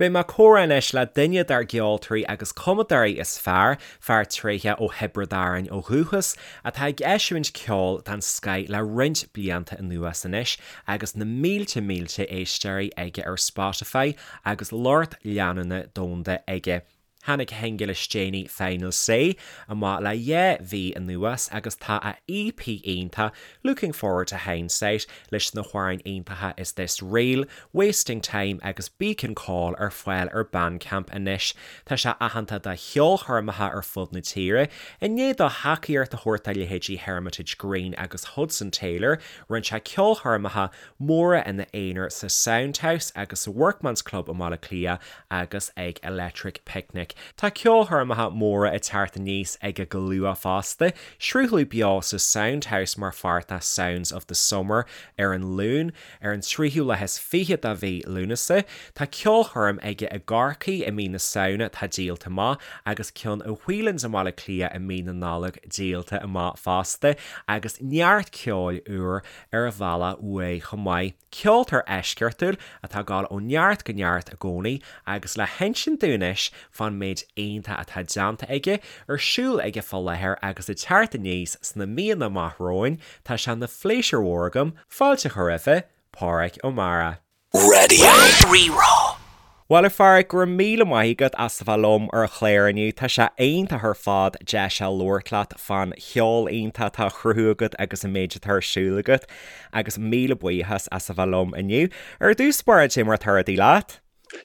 Beidh mé ag comhrá anois le duine dár gceoltóirí agus cumadóirí is fearr, fear tréitheach ó Thiobraid Árann ó dhúchas, atá ag eisiúint ceoil den scoith le roinnt blianta anuas anois agus na mílte mílte éisteoirí aige ar Spotify agus lucht leanúna domhanda aige. Tháinig a shingil is déanaí Final Say amach le 2 mhí anuas agus tá a EP iontach Looking Forward to Hindsight leis na hamhráin iontacha Is This Real, Wasting Time agus Beacon Call ar fáil ar Bandcamp anois. Tá sé aitheanta do cheolchoirmeacha ar fud na tíre. I ndiaidh dó tacaíocht a thabhairt do leithéidí Hermitage Green agus Hudson Taylor, rinne sé ceolchoirmeacha móra ina aonar sa Soundhouse agus sa Workman's Club i mBaile Átha Cliath agus ag Electric Picnic. Tá ceolchoirmeacha móra ag teacht aníos aige go luath fosta, sruthlú beo sa Soundhouse mar pháirt de Sounds of the Summer ar an Luan, ar an tríú lá is fiche de mhí Lúnasa. Tá ceolchoirm aige i gCorcaigh i mí na Samhna atá díolta amach agus ceann i Whelan's i mBaile Átha Cliath i mí na Nollag díolta amach fosta agus neart ceoil úr ar a bhealach uaidh chomh maith. Ceoltóir eisceachtúil atá ag dul ó neart go neart i gcónaí agus le hinsint dúinn anois fán méid iontach atá déanta aige, ar siúl aige fá láthair agus ag teacht aníos sna míonna amach romhainn, tá sé ina phléisiúr mhór agam fáilte a chur roimhe, Pádhraic Ó Meára. Raidió Rí-Rá. Bhuel a Phádhraic, go raibh míle maith agat as a bheith liom ar an chlár inniu. Tá sé iontach ar fad deis a labhairt leat fán cheol iontach atá á chruthú agat agus an méid atá ar siúl agat agus míle buíochas as a bheith liom inniu. Ar dtús báire, cad é mar atá rudaí leat?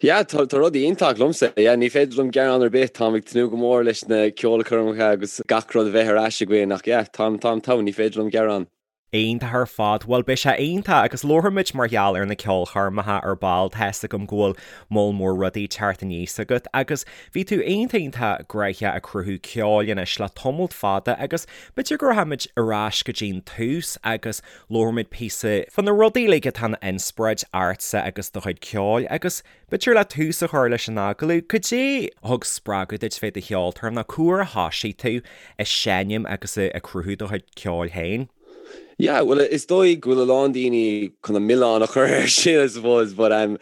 Yeah, tá rudaí iontach liomsa. Yeah, ní féidir liom gearán ar bith. Táim ag tnúth go mór leis na ceolchoirmeacha agus gach rud a bheith ar ais againn ach yeah, táim, táim togha, ní féidir liom gearán. Iontach ar fad. Bhuel, beidh sé iontach agus labharfaimid mar gheall ar na ceolchoirmeacha ar ball. Tá's agam go bhfuil moll mór rudaí ag teacht aníos agat agus bhí tú iontach iontach gnoitheach ag cruthú ceoil anois le tamalt fada agus b'fhéidir go rachaimid ar ais go dtí'n tús agus labharfaimid píosa fá na rudaí uilig atá ina inspioráid ortsa agus do chuid ceoil agus b'fhéidir le tús a chur leis an agallamh, cad é a thug spreagadh duit bheith i do cheoltóir nó cá huair a thosaigh tú ag seinm agus ag cruthú do chuid ceoil féin? Yeah, bhuel is dóigh go bhfuil a lán daoine chun an milleán a chur air sin, I suppose, but um,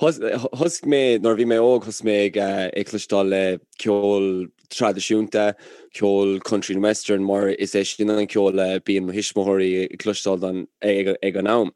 thosaigh mé, nuair a bhí mé óg, thosaigh mé ag, uh, ag cloisteáil le ceol traidisiúnta, ceol country and western mar is é sin an ceol a bíonn mo thuismitheoirí ag cloisteáil don, ag, ag an am.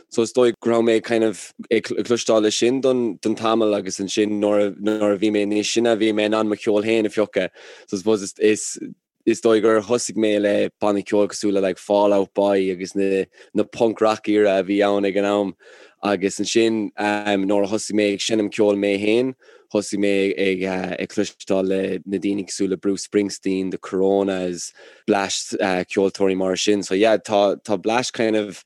So is dóigh go raibh mé kind of ag cloisteáil leis sin don, don tamall agus ansin nuair a, nuair a bhí mé níos sine bhí mé in ann mo cheol féin a phiocadh. So I suppose is, is, is dóigh gur thosaigh mé le bannaí ceoil cosúil le like Fall Out Boy agus na, na punk rock era a bhí ann ag an am agus ansin um, nuair a thosaigh mé ag seinm ceoil mé féin, Thosaigh mé ag cloisteáil le na daoine cosúil le Bruce Springsteen, The Coronas, bleaist ceoltóirí mar sin. So yeah, tá tá bleaist kind of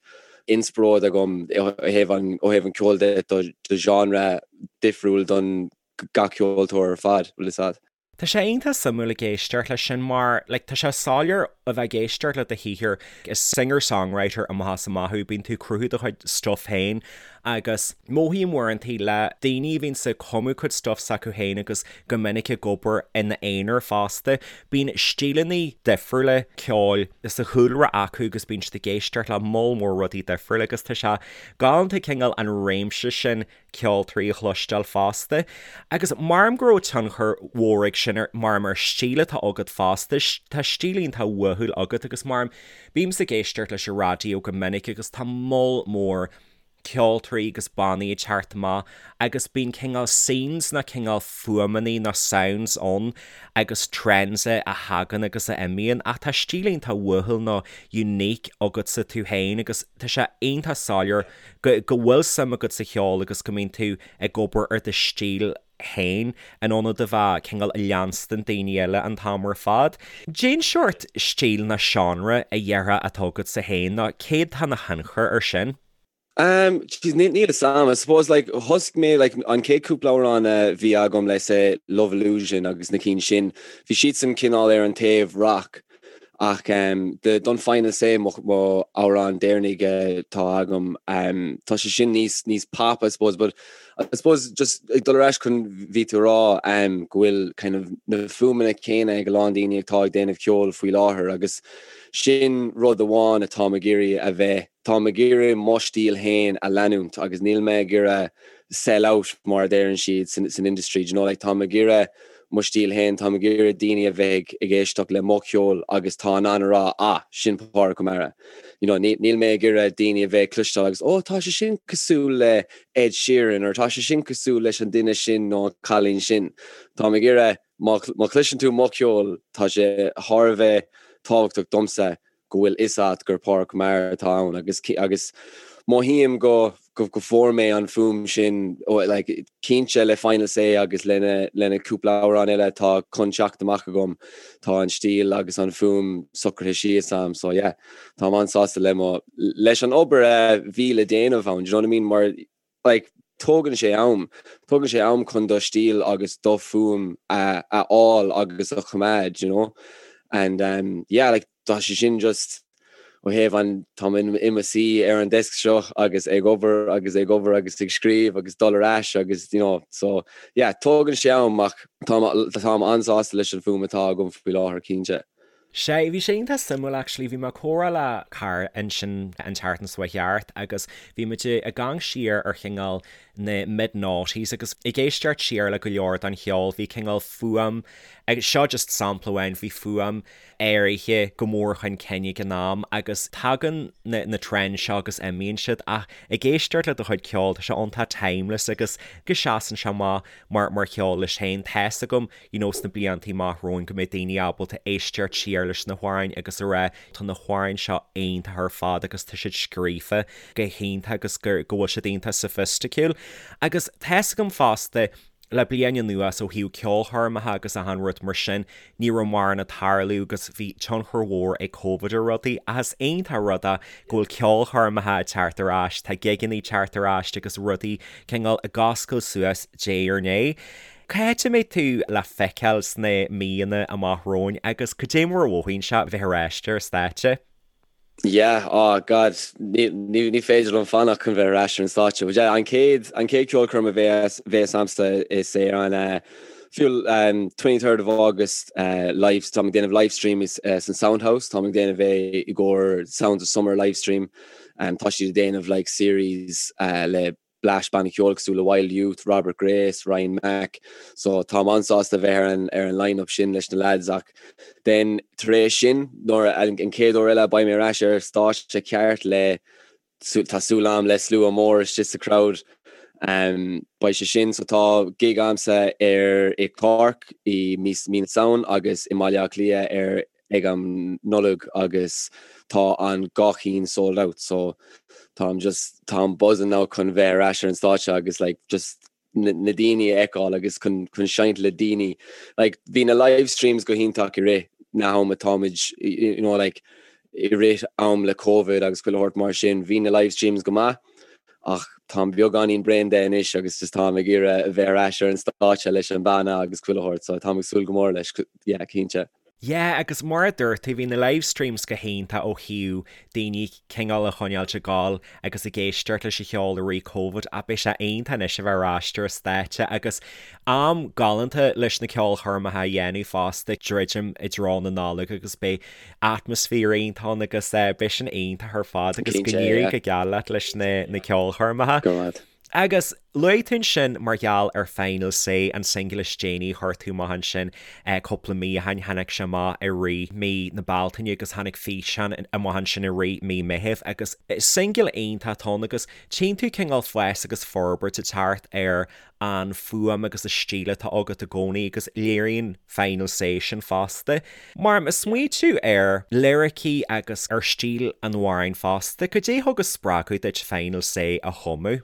inspioráid agam ó thaobh an ó thaobh an ceoil de do do genre difriúil don gach ceoltóir ar fad, bhfuil fhios a'd. Tá sé iontach suimiúil ag éisteacht leis sin mar like tá sé soiléir a bheith ag éisteacht le do shaothar, is singer-songwriter amach is amach thú, bíonn tú ag cruthú do chuid stuff féin agus mothaím uaireantaí le daoine a bhíonns ag cumadh cuid stuff s'acu féin agus go minic ag obair ina aonar fosta, bíonn stíleanna difriúla ceoil sa chúlra acu agus bíonn siad ag éisteacht le moll mór rudaí difriúla agus tá sé galánta cineál an réimse sin ceoltóirí a chloisteáil fosta. Agus maram go raibh tionchar mhór ag sin ar, maram ar stíl atá agat fosta, tá stíl iontach uathúil agat agus maram, bímse ag éisteacht leis an raidió go minic agus tá moll mór ceoltóirí agus bannaí ag teacht amach agus bíonn cineál scenes nó cineál fuaimeanna nó sounds ann agus trends a thagann agus a imíonn ach tá stíl iontach uathúil nó unique agatsa tú féin agus tá sé iontach soiléir go go bhfuil suim agat sa cheol agus go mbíonn tú ag obair ar do stíl féin in ionad a bheith cineál ag leanstan daoine eile an t-am ar fad. Cén seort stíl nó seánra a dhéarfá atá agatsa féin nó céard atá ina thionchar ar sin? Um, geez, níl fhios a'm. I suppose like thosaigh mé like an chéad cúpla amhrán a bhí agam le say Love Illusion agus na cinn sin, bhí siadsan cineál ar an taobh rock. Ach don Final Say, mo amhrán deireanaigh atá agam, tá sé sin níos níos pop I suppose, but I suppose just ag dul ar ais chun bhí tú a rá go bhfuil kind of na fuaimeanna céanna ag a lán daoine atá ag déanamh ceoil faoi láthair agus Sin rud amháin atáim ag iarraidh a bheith, táim ag iarraidh mo stíl féin a leanúint agus níl mé ag iarraidh sell out mar a deireann siad san industry, do you know, like táim ag iarraidh mo stíl féin, táim ag iarraidh daoine a bheith ag éisteacht le mo cheol agus tá in ann a rá ah, sin Pádraig Ó Meára. You know, níl mé ag iarraidh daoine a bheith ag cloisteáil agus oh tá sé sin cosúil le Ed Sheeran or tá sé sin cosúil leis an duine sin nó an cailín sin. Táim ag iarraidh Má chloiseann tú mo cheol, tá sé thar a bheith tábhachtach domsa go bhfuil fhios a't gur Pádraig Ó Meára atá ann agus agus mothaím go go fuair mé an fuaim sin like cinnte le Final Say agus lena lena cúpla amhrán eile atá chun teacht amach agam tá an stíl agus an fuaim socraithe síos a'm so yeah táim an-sásta le mo leis an obair a bhí le déanamh ann do you know what I mean mar like tógann sé am, tógann sé am chun do stíl agus do fuaim a a fháil agus a choimeád, you know, and um yeah like tá sé sin just ó thaobh an táim i mo suí ar an desk seo agus ag obair agus ag obair agus ag scríobh agus dul ar ais agus you know so yeah tógann sé am ach táim táim an-sásta leis an fuaim atá agam faoi láthair cinnte. Sea, bhí sé iontach suimiúil actually, bhí mé ag comhrá le cara ansin an tseachtain seo chuaigh thart agus bhí muid ag amharc siar ar chineál na mid-noughties agus ag éisteacht siar le go leor den cheol, bhí cineál fuaim, agus seo just sampla amháin, bhí fuaim áirithe go mór chun cinn ag an am agus tagann na na trends seo agus imíonn siad ach ag éisteacht le do chuid ceoil tá sé iontach timeless agus go seasann sé amach mar mar cheol leis féin, tá's agam you know sna blianta amach romhainn go mbeidh daoine ábalta éisteacht siar leis na hamhráin agus a rá tá na hamhráin seo iontach ar fad agus tá siad scríofa go hiontach agus go go bhfuil siad iontach soifisticiúil. Agus tá's agam fosta le bliain anuas ó thaobh ceolchoirmeacha agus achan rud mar sin ní raibh mórán ag tarlú agus bhí tionchar mhór ag Covid ar rudaí ach is iontach an rud é go bhfuil ceolchoirmeacha ag teacht ar ais, tá gigeanna ag teacht ar ais agus rudaí cineál ag oscailt suas diaidh ar ndiaidh. Cá háit a mbeidh tú le feiceáil sna míonna amach romhainn agus cad é mar a mhothaíonn sé bheith ar ais ar an stáitse? Yeah, oh God, ní, ní, ní féidir liom fanacht chun bheith ar ais ar an stáitse. But yeah, an chéad, an chéad ceolchoirm a bheas, bheas a'msa is é ar an, eh, fiú, um, 23rd of August, eh, live, táim ag déanamh live stream is, eh, san Soundhouse, táim ag déanamh é i gcomhair Sounds of Summer live stream. Um, tá siad ag déanamh like series, eh, le Blast banna ceoil cosúil le Wild Youth, Robert Grace, Ryan Mack so táim an-sásta bheith ar an ar an line-up sin leis na lads ach then tar éis sin nuair an chéad uair eile beidh mé ar ais ar stáitse ceart le tá súil a'm le slua mór istigh sa crowd um, beidh sé sin so tá gig a'msa ar i Cork i mí mí na Samhain agus i mBaile Átha Cliath ar ag am Nollag agus tá an dhá chinn sold out so táim just táim buzzing now chun bheith ar ais ar an stáitse agus like just na na daoine a fheiceáil agus chun chun seinnt le daoine. Like bhí na live streams go hiontach i rith na ham atáimid you know like i rith am le Covid agus chuile shórt mar sin bhí na live streams go maith ach táim beagáinín bréan de anois agus just táim ag iarraidh a bheith ar ais ar an stáitse leis an banna agus chuile shórt so táim ag súil go mór leis yeah cinnte. Yeah, agus mar a dúirt tú, bhí na live streams go hiontach ó thaobh daoine cineál a choinneáilt ag gabháil agus ag éisteacht leis an cheol i rith Covid ach beidh sé iontach anois a bheith ar ais ar an stáitse agus am galánta leis na ceolchoirmeacha a dhéanamh fosta, druidim i dtreo na Nollag agus beidh atmaisféar iontach ann agus beidh sin iontach ar fad agus go n-éirí go geal leat leis na ceolchoirmeacha. Go raibh. Agus luaigh tú ansin mar gheall ar Final Say, an singil is déanaí a chuir tú amach ansin cúpla mí ó shin, tháinig sé amach i rith mí na Bealtaine agus tháinig físeán amach ansin i rith mí Meithimh agus singil iontach atá ann agus tchíonn tú cineál fás agus forbairt ag teacht ar an fuaim agus an stíl atá agat i gcónaí agus léiríonn Final Say sin fosta. Mar má smaointíonn tú ar liricí agus ar stíl an amhráin fosta, cad é thug an spreagadh duit Final Say a chumadh?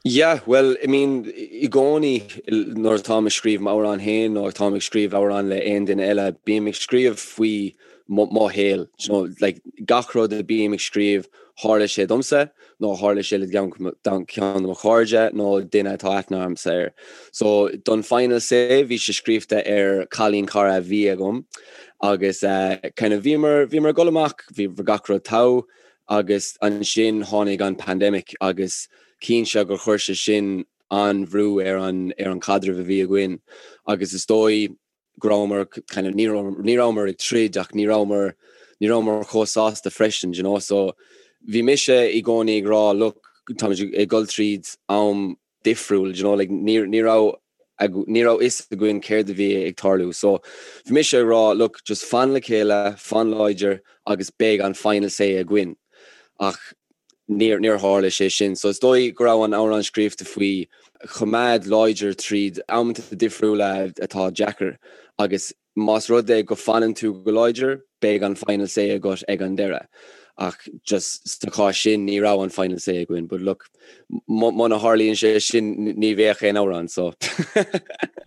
Yeah, bhuel, I mean, i gcónaí nuair atáim ag scríobh m'amhrán féin nó atáim ag scríobh amhrán le aon duine eile, bím ag scríobh faoi mo shaol, you know, like gach rud a bím ag scríobh, tharla sé domsa nó tharla sé le ceann de mo chairde nó duine atá aithne agamsa air. So don Final Say bhí sé scríofa ar cailín cara a bhí agam agus kind of bhíomar bhíomar ag dul amach, bhí gach rud togha agus ansin tháinig an pandemic agus cinnte gur chuir sé sin an-bhrú ar an ar an caidreamh a bhí againn agus is dóigh go rabhamar kind of ní rabhamar ag troid ach ní rabhamar ní rabhamar chomh sásta freisin, you know, so bhí mise i gcónaí ag rá look, táimid ag dul tríd am difriúil, you know, like ní ní raibh ní raibh fhios againn céard a bhí ag tarlú. So bhí mise ag rá look, just fan le chéile, fan láidir agus beidh an final say againn. Ach níor níor tharla sé sin. So is dóigh go raibh an amhrán scríofa faoi choimeád láidir tríd amanta difriúla atá deacair agus Más rud é go fanann tú go láidir, beidh an final say agat ag an deireadh. Ach just sa chás sin, ní raibh an final say againn. But look, muna tharlaíonn sé sin, ní bheadh aon amhrán, so.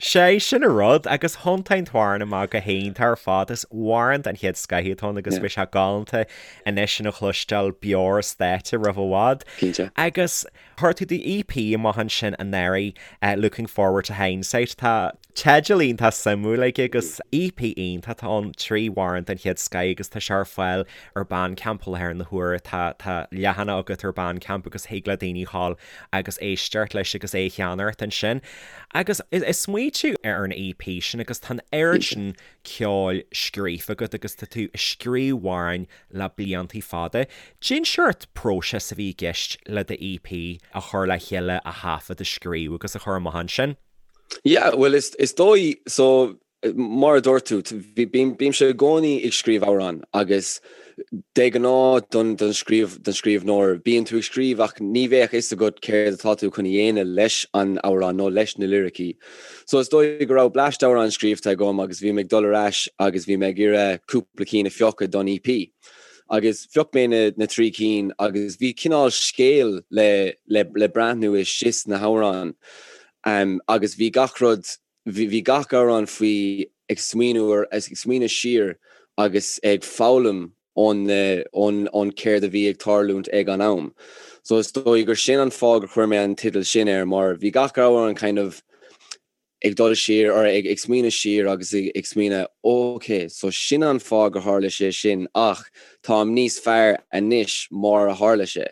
Sé sin an rud, agus thiontaigh an t-amhrán amach go hiontach ar fad. Is amhrán den chéad scoith atá ann agus beidh sé galánta anois sin a chloisteáil beo ar stáitse roimh i bhfad. Cinnte. Agus chuir tú do EP amach ansin anuraidh, Looking Forward to Hindsight. Tá. Teideal iontach suimiúil aige agus EP iontach atá ann, 3 amhrán den chéad scoith agus tá sé ar fáil ar Bandcamp i láthair na huaire. Tá tá leathanach agat ar Bandcamp agus thig le daoine dhul agus éisteacht leis agus é a cheannacht ansin. Agus ag smaoitiú ar an EP sin agus tá an oiread sin ceoil scríofa agat agus tá tú ag scríobh amhráin le bliantaí fada. Cén seort próiseas a bhí i gceist le do EP a chur le chéile, a thaifead, a scríobh agus a chur amach ansin? Yeah, bhuel is is dóigh, so mar a dúirt tú, bím bímse i gcónaí ag scríobh amhrán agus de ghnáth don don scríobh don scríbhneoir bíonn tú ag scríobh ach ní bheadh fhios agat céard atá tú chun a dhéanamh leis an amhrán nó leis na liricí. So is dóigh go raibh bleaist amhrán scríobhta agam agus bhí mé ag dul ar ais agus bhí mé ag iarraidh cúpla cinn a phiocadh don EP. Agus phioc mé na na trí cinn agus bhí cineál scéal le le le breathnú istigh sna hamhráin. Agus bhí gach rud, bhí gach amhrán faoi ag smaoineamh ar, ag smaoineamh siar agus ag foghlaim ón, ón, ón céard a bhí ag tarlúint ag an am. So is dóigh gur sin an fáth gur chuir mé an teideal sin air mar bhí gach amhrán kind of ag dul siar or ag ag smaoineamh siar agus ag ag smaoineamh ok so sin an fáth gur tharla sé sin ach táim níos fearr anois mar a tharla sé.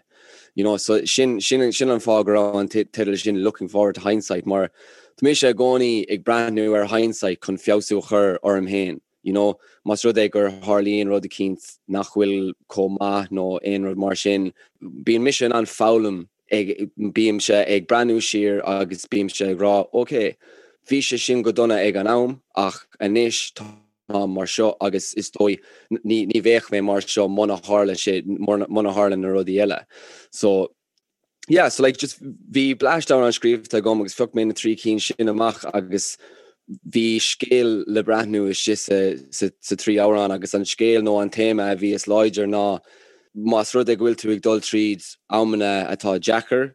You know so sin sin sin an fáth go raibh an teideal sin Looking Forward to Hindsight mar tá mise i gcónaí ag breathnú ar hindsight chun feabhsú a chur orm féin. You know más rud é gur tharlaíonn rud eicínt nach bhfuil chomh maith nó aon rud mar sin, bíonn mise in ann foghlaim ag, bímse ag breathnú siar agus bímse ag rá ok, bhí sé sin go dona ag an am ach anois táim mar seo agus is dóigh ní, ní bheadh mé mar seo muna tharla sé, muna tharla na rudaí eile. So yeah, so like just bhí bleaist amhrán scríobhta agam agus phioc mé na trí cinn sin amach agus bhí scéal le breathnú istigh sa, sa, sa trí amhrán agus an scéal nó an téama a bhí is láidir ná más rud é go bhfuil tú ag dul tríd amanna atá deacair,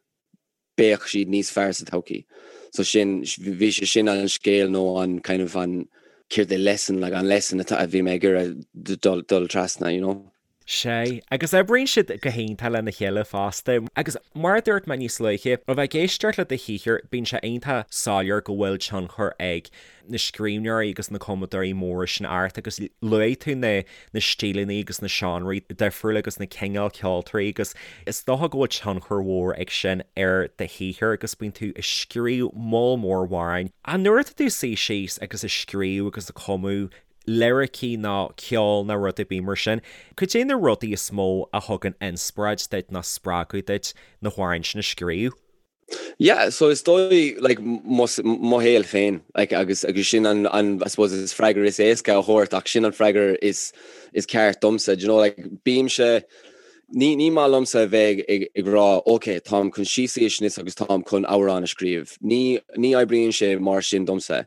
beidh siad níos fearr sa todhchaí. So sin, bhí sé sin an scéal nó an kind of an, céard é lesson, like an lesson atá, a bhí mé ag iarraidh dul, dul trasna, you know. Sea, agus oibríonn siad go hiontach lena chéile fosta. Agus mar a dúirt mé níos luaithe, ó bheith ag éisteacht le do shaothar, bíonn sé iontach soiléir go bhfuil tionchar ag na scríbhneoirí agus na cumadóirí móra sin ort agus luaigh tú na na stíleanna agus na seánraí difriúla agus na cineál ceoltóirí agus is dócha go bhfuil tionchar mhór ag sin ar do shaothar agus bíonn tú ag scríobh moll mór amhrán. Ach nuair atá tú ag suí síos agus ag scríobh agus ag cumadh liricí nó ceol nó rud ar bith mar sin, cad é na rudaí is mó a thugann inspioráid duit nó spreagadh duit na hamhráin sin a scríobh? Yeah, so is dóigh like mo mo shaol féin like agus agus sin an an I suppose is freagra is éasca a thabhairt ach sin an freagra is is ceart domsa, do you know like bímse ní ní maith liomsa a bheith ag ag rá ok táim chun suí síos anois agus táim chun amhrán a scríobh. Ní ní oibríonn sé mar sin domsa.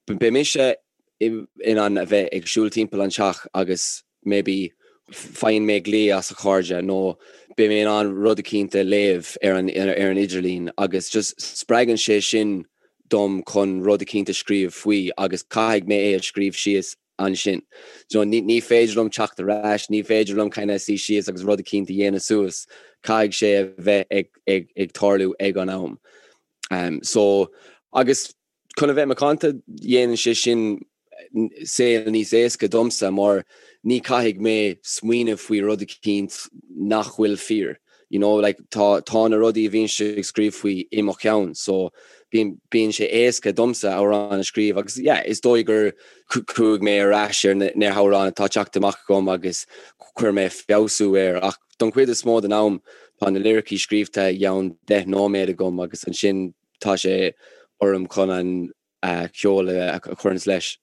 Beidh mise in ann a bheith ag siúl timpeall an teach agus maybe faigheann mé glao as a chairde nó beidh mé in ann rud eicínt a léamh ar an ar an idirlíon agus just spreagann sé sin dom chun rud eicínt a scríobh faoi agus caithfidh mé é a scríobh síos ansin. So ní ní féidir liom teacht ar ais, ní féidir liom kind of suí síos agus rud eicínt a dhéanamh suas, caithfidh sé a bheith ag ag ag tarlú ag an am. Um, so agus Chun a bheith macánta, dhéanann sé sin saol níos éasca domsa mar ní caithfidh mé smaoineamh faoi rud eicínt nach bhfuil fíor. You know, like tá tá na rudaí a bhíonn sé ag scríobh faoi i mo cheann so bíonn bíonn sé éasca domsa amhrán a scríobh agus yeah is dóigh gur chuaigh mé ar ais ar na na hamhráin atá teacht amach agam agus chuir mé feabhsú air ach don chuid is mó den am tá na liricí scríobhta i gceann 10 nóiméad agam agus ansin tá sé orm chun an ceol a chuirns leis.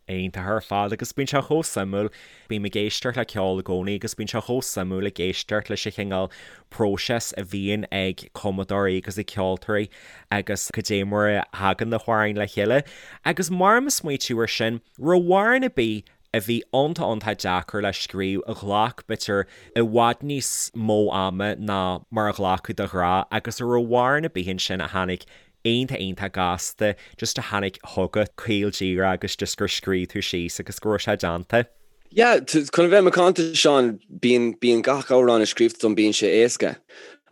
Iontach ar fad agus bíonn sé chomh suimiúil, bím ag éisteacht le ceol i gcónaí agus bíonn sé chomh suimiúil ag éisteacht leis an chineál próiseas a bhíonn ag cumadóirí agus ag ceoltóirí agus cad é mar a thagann na hamhráin le chéile. Agus mar ag smaoitiú ar sin, raibh amhrán ar bith a bhí iontach iontach deacair le scríobh a ghlac b'fhéidir i bhfad níos mó ama ná mar a ghlacfadh de ghnáth agus an raibh amhrán ar bith ansin a tháinig iontach iontach gasta just a tháinig chugat caol díreach agus just gur scríobh tú síos agus go raibh sé déanta. Yeah, chun a bheith macánta Seán, bíonn, bíonn gach amhrán a scríobhtar dom, bíonn sé éasca.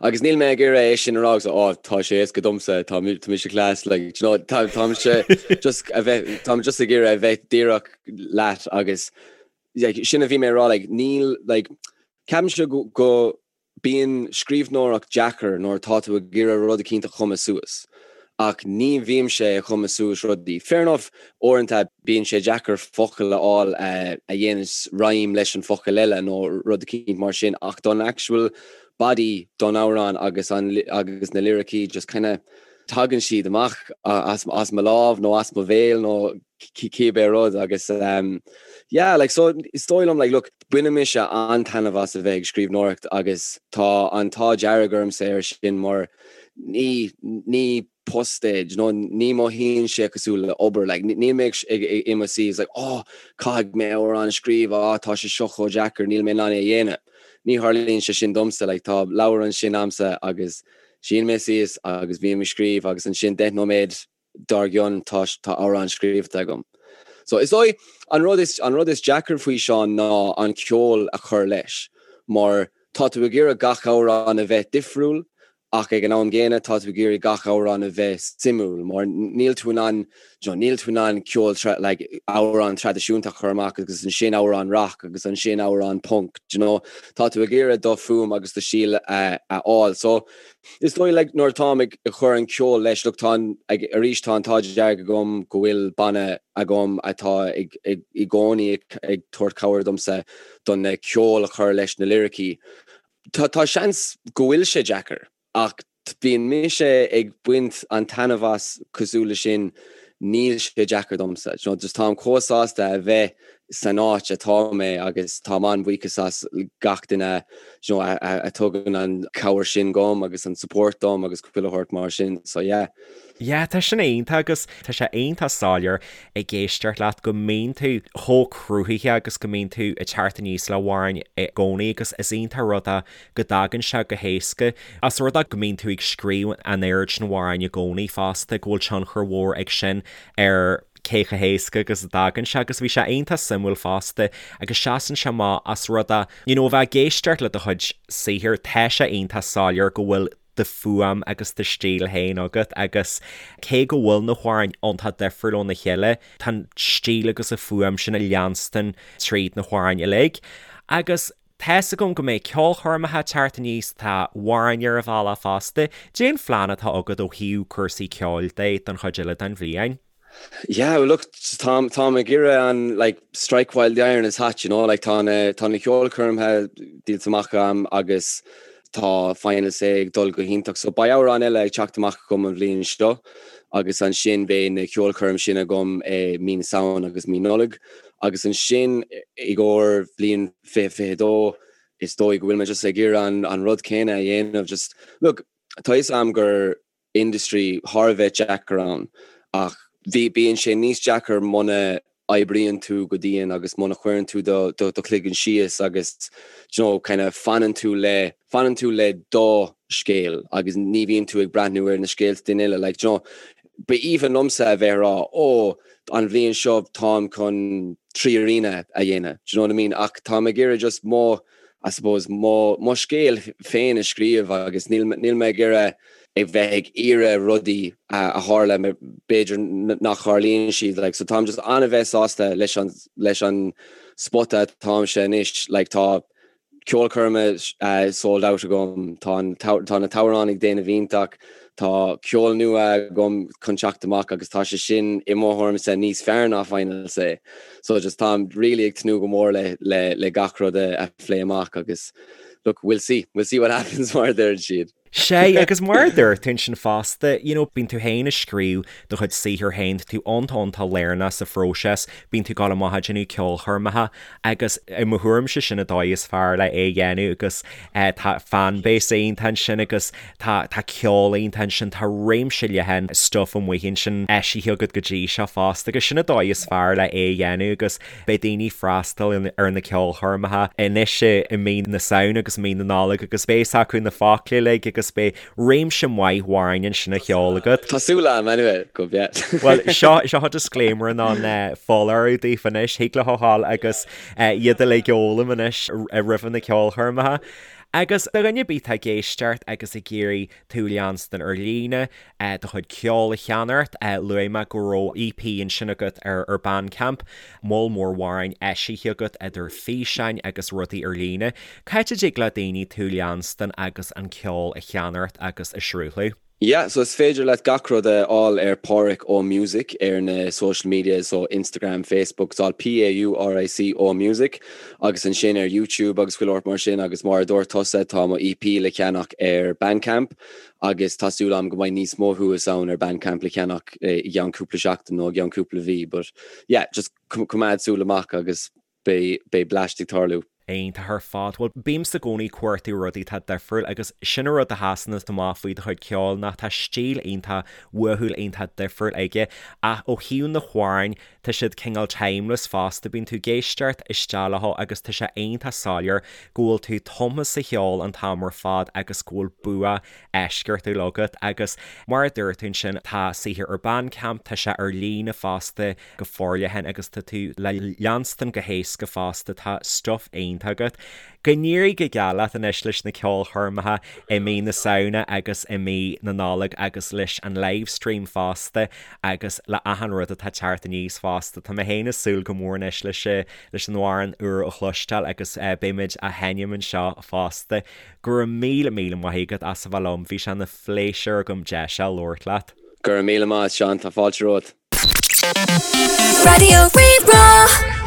Agus níl mé ag iarraidh é sin a rá agus oh tá sé éasca domsa, tá, tá mise class, like, do you know, tá, táimse just a bheith, táim just ag iarraidh a bheith díreach leat agus like, sin a bhí mé a rá, like, níl, like, ceapaimse go, go, Bíonn scríbhneoireacht deacair nuair atá tú ag iarraidh rud eicínt a chumadh suas. Ach ní bhímse ag chumadh suas rudaí. Fair enough, uaireanta bíonn sé deacair focal a fháil a dhéanas rhyme leis an focal eile nó rud eicínt mar sin ach don actual body don amhrán agus an agus na liricí just kinda tagann siad amach as as mo lámh nó as mo bhéal nó cibé rud agus yeah like so is dóigh liom like look baineann mise an-taitneamh as a bheith ag scríbhneoireacht agus tá an t-ádh dearg ormsa air sin mar ní ní post é you know ní mothaíonn sé cosúil le obair like níl mé ag i mo suí is like oh caithfidh mé amhrán a scríobh ah tá sé seo chomh deacair níl mé in ann é a dhéanamh ní tharlaíonn sé sin domsa like tá leabhar ansin a'msa agus suíonn mé síos agus bím ag scríobh agus ansin 10 nóiméad dár gcionn tá tá amhrán scríobhta agam. So is dóigh an rud is an rud is deacair faoi Seán ná an ceol a chur leis mar tá tú ag iarraidh gach amhrán a bheith difriúil ach ag an am gcéanna tá tú ag iarraidh gach amhrán a bheith suimiúil mar níl tú in ann you know, níl tú in ann ceol like, amhrán traidisiúnta a chur amach agus ansin amhrán rock agus ansin amhrán punk, you know, tá tú ag iarraidh do fuaim agus do stíl a, a fháil. So Is dóigh like nuair atáim ag cur an ceol leis, look tá an, ag, arís tá an t-ádh dearg agam go bhfuil banna agam atá ag, ag, i gcónaí ag, ag tabhairt cabhair domsa don na ceol a chur leis na liricí. Tá, tá seans go bhfuil sé deacair ach bíonn mise ag baint an taitneamh as cosúil le sin, níl sé deacair domsa. You know, just táim chomh sásta a bheith san áit atá mé agus táim an-bhuíochas as gach duine you know, a, a, a tugann an cabhair sin dom agus an support dom agus chuile shórt mar sin. So yeah. Yeah, tá sin iontach agus tá sé iontach soiléir ag éisteacht leat go mbíonn tú chomh cruthaithe agus go mbíonn tú ag teacht aníos le hamhráin i gcónaí agus is iontach rud é go dtagann sé go héasca. Ós rud é go mbíonn tú ag scríobh an oiread sin amhráin i gcónaí fosta, go bhfuil tionchar mhór ag sin ar cé chomh héasca agus a dtagann sé agus bhí sé iontach suimiúil fosta agus seasann sé amach ós rud é you know a bheith ag éisteacht le do chuid saothair, tá sé iontach soiléir go bhfuil do fuaim agus do stíl féin agat agus cé go bhfuil na hamhráin iontach difriúil óna chéile, tá an stíl agus an fuaim sin ag leanstan tríd na hamhráin uilig. Agus Tá's agam go mbeidh ceolchoirmeacha ag teacht aníos, tá amhráin ar an bhealach fosta. Cén phlean atá agat ó thaobh cúrsaí ceoil de don chuid eile den bhliain? Yeah, well look, táim, táim ag iarraidh an, like, strike while the iron is hot, you know, like tá na, tá na ceolchoirmeacha díolta amach agam agus tá Final Say ag dul go hiontach. So beidh amhrán eile ag teacht amach agam an bhliain seo agus ansin beidh na ceolchoirm sin agam i mí na Samhain agus mí Nollag agus ansin i gcomhair bhliain 2022, is dóigh go bhfuil mé just ag iarraidh an rud céanna a dhéanamh, just, look, tá fhios a'm gur industry thar a bheith deacair ann ach bhí, bíonn sé níos deacair muna oibríonn tú go dian agus muna chuireann tú do, do, do chloigeann síos agus, do you know, kind of fanann tú le, fanann tú le do scéal agus ní bhíonn tú ag breathnú ar na scéalta daoine eile, like, do you know, B'aoibhinn liomsa a bheith ag rá, 'Ó, an bhliain seo táim chun 3 arena a dhéanamh', do you know what I mean? Ach táim ag iarraidh just mo, I suppose, mo, mo scéal féin a scríobh agus níl, níl mé ag iarraidh a bheith ag iarraidh rudaí a tharla b'fhéidir nach tharlaíonn siad, like, so táim just an-bheith sásta leis an, leis an spota atáimse anois, like, tá ceolchoirme sold out agam, tá na t-amhráin ag déanamh iontach, Tá ceol nua agam chun teacht amach agus tá sé sin i mo thuairimse níos fearr ná Final Say. So just táim really ag tnúth go mór le le le gach rud a phlé amach agus look, we'll see, we'll see what happens mar a deireann siad. Sea, agus mar a dúirt tú ansin fosta, you know, bíonn tú féin ag scríobh do chuid saothair féin, tá tú iontach iontach lárnach sa phróiseas, bíonn tú ag dul amach ag déanamh ceolchoirmeacha agus i mo thuairimse sin an dóigh is fearr le é a dhéanamh agus tá fanbase iontach ansin agus tá tá ceol iontach ansin, tá réimse leathan stuff amuigh ansin eisithe agat go dtí seo fosta agus sin an dóigh is fearr le é a dhéanamh agus beidh daoine ag freastal ar na ceolchoirmeacha anois i mí na Samhna agus mí na Nollag agus beidh fhios acu na focla uilig agus beidh réimse maith amhráin ansin á cheol agat. Tá súil agam, anyway, go mbeidh. Bhuel, seo, seo disclaimer in ann foláireamh daoibh anois, thig leo a ghabháil agus iad uilig a fhoghlaim anois roimh na ceolchoirmeacha. Agus do dhuine ar bith atá ag éisteacht agus ag iarraidh tú a leanstan ar líne, do chuid ceoil a cheannacht, luaigh mé go raibh EP ansin agat ar ar Bandcamp, moll mór amhráin eisithe agat idir físeáin agus rudaí ar líne. Cá háit a dtig le daoine tú a leanstan agus an ceol a cheannacht agus a shruthlú? Yeah, so is féidir leat gach rud a fháil ar Pauric O Music ar na social media, so Instagram, Facebook, it's all P-A-U-R-I-C O Music, agus ansin ar YouTube agus chuile shórt mar sin agus mar a dúirt tusa tá mo EP le ceannach ar Bandcamp agus tá súil agam go mbeidh níos mó thuas ann ar Bandcamp le ceannach i gceann cúpla seachtain nó i gceann cúpla mhí but yeah just coimeád súil amach agus beidh beidh bleaist ag tarlú. Iontach ar fad. Bhuel, bímse i gcónaí ag cuartú rudaí atá difriúil agus sin an rud a sheasann amach faoi do chuid ceoil ná tá stíl iontach uathúil iontach difriúil aige ach ó thaobh na hamhráin tá siad cineál timeless fosta, bíonn tú ag éisteacht isteach leo agus tá sé iontach soiléir go bhfuil tú tumtha sa cheol an t-am ar fad agus go bhfuil bua eisceachtúil agat agus mar a dúirt tú ansin tá saothar ar Bandcamp, tá sé ar líne fosta go forleathan agus tá tú le leanstan go héasca fosta, tá stuff iontach agat. Go n-éirí go geal leat anois leis na ceolchoirmeacha i mí na Samhna agus i mí na Nollag agus leis an livestream fosta agus le achan rud atá ag teacht aníos fosta. Tá mé féin ag súil go mór anois leis leis an amhrán úr a chloisteáil agus beimid á sheinm anseo fosta. Go raibh míle míle maith agat as a bheith liom, bhí sé ina phléisiúr agam deis a labhairt leat. Go raibh míle maith, Seán, tá fáilte romhat. Raidió Rí-Rá.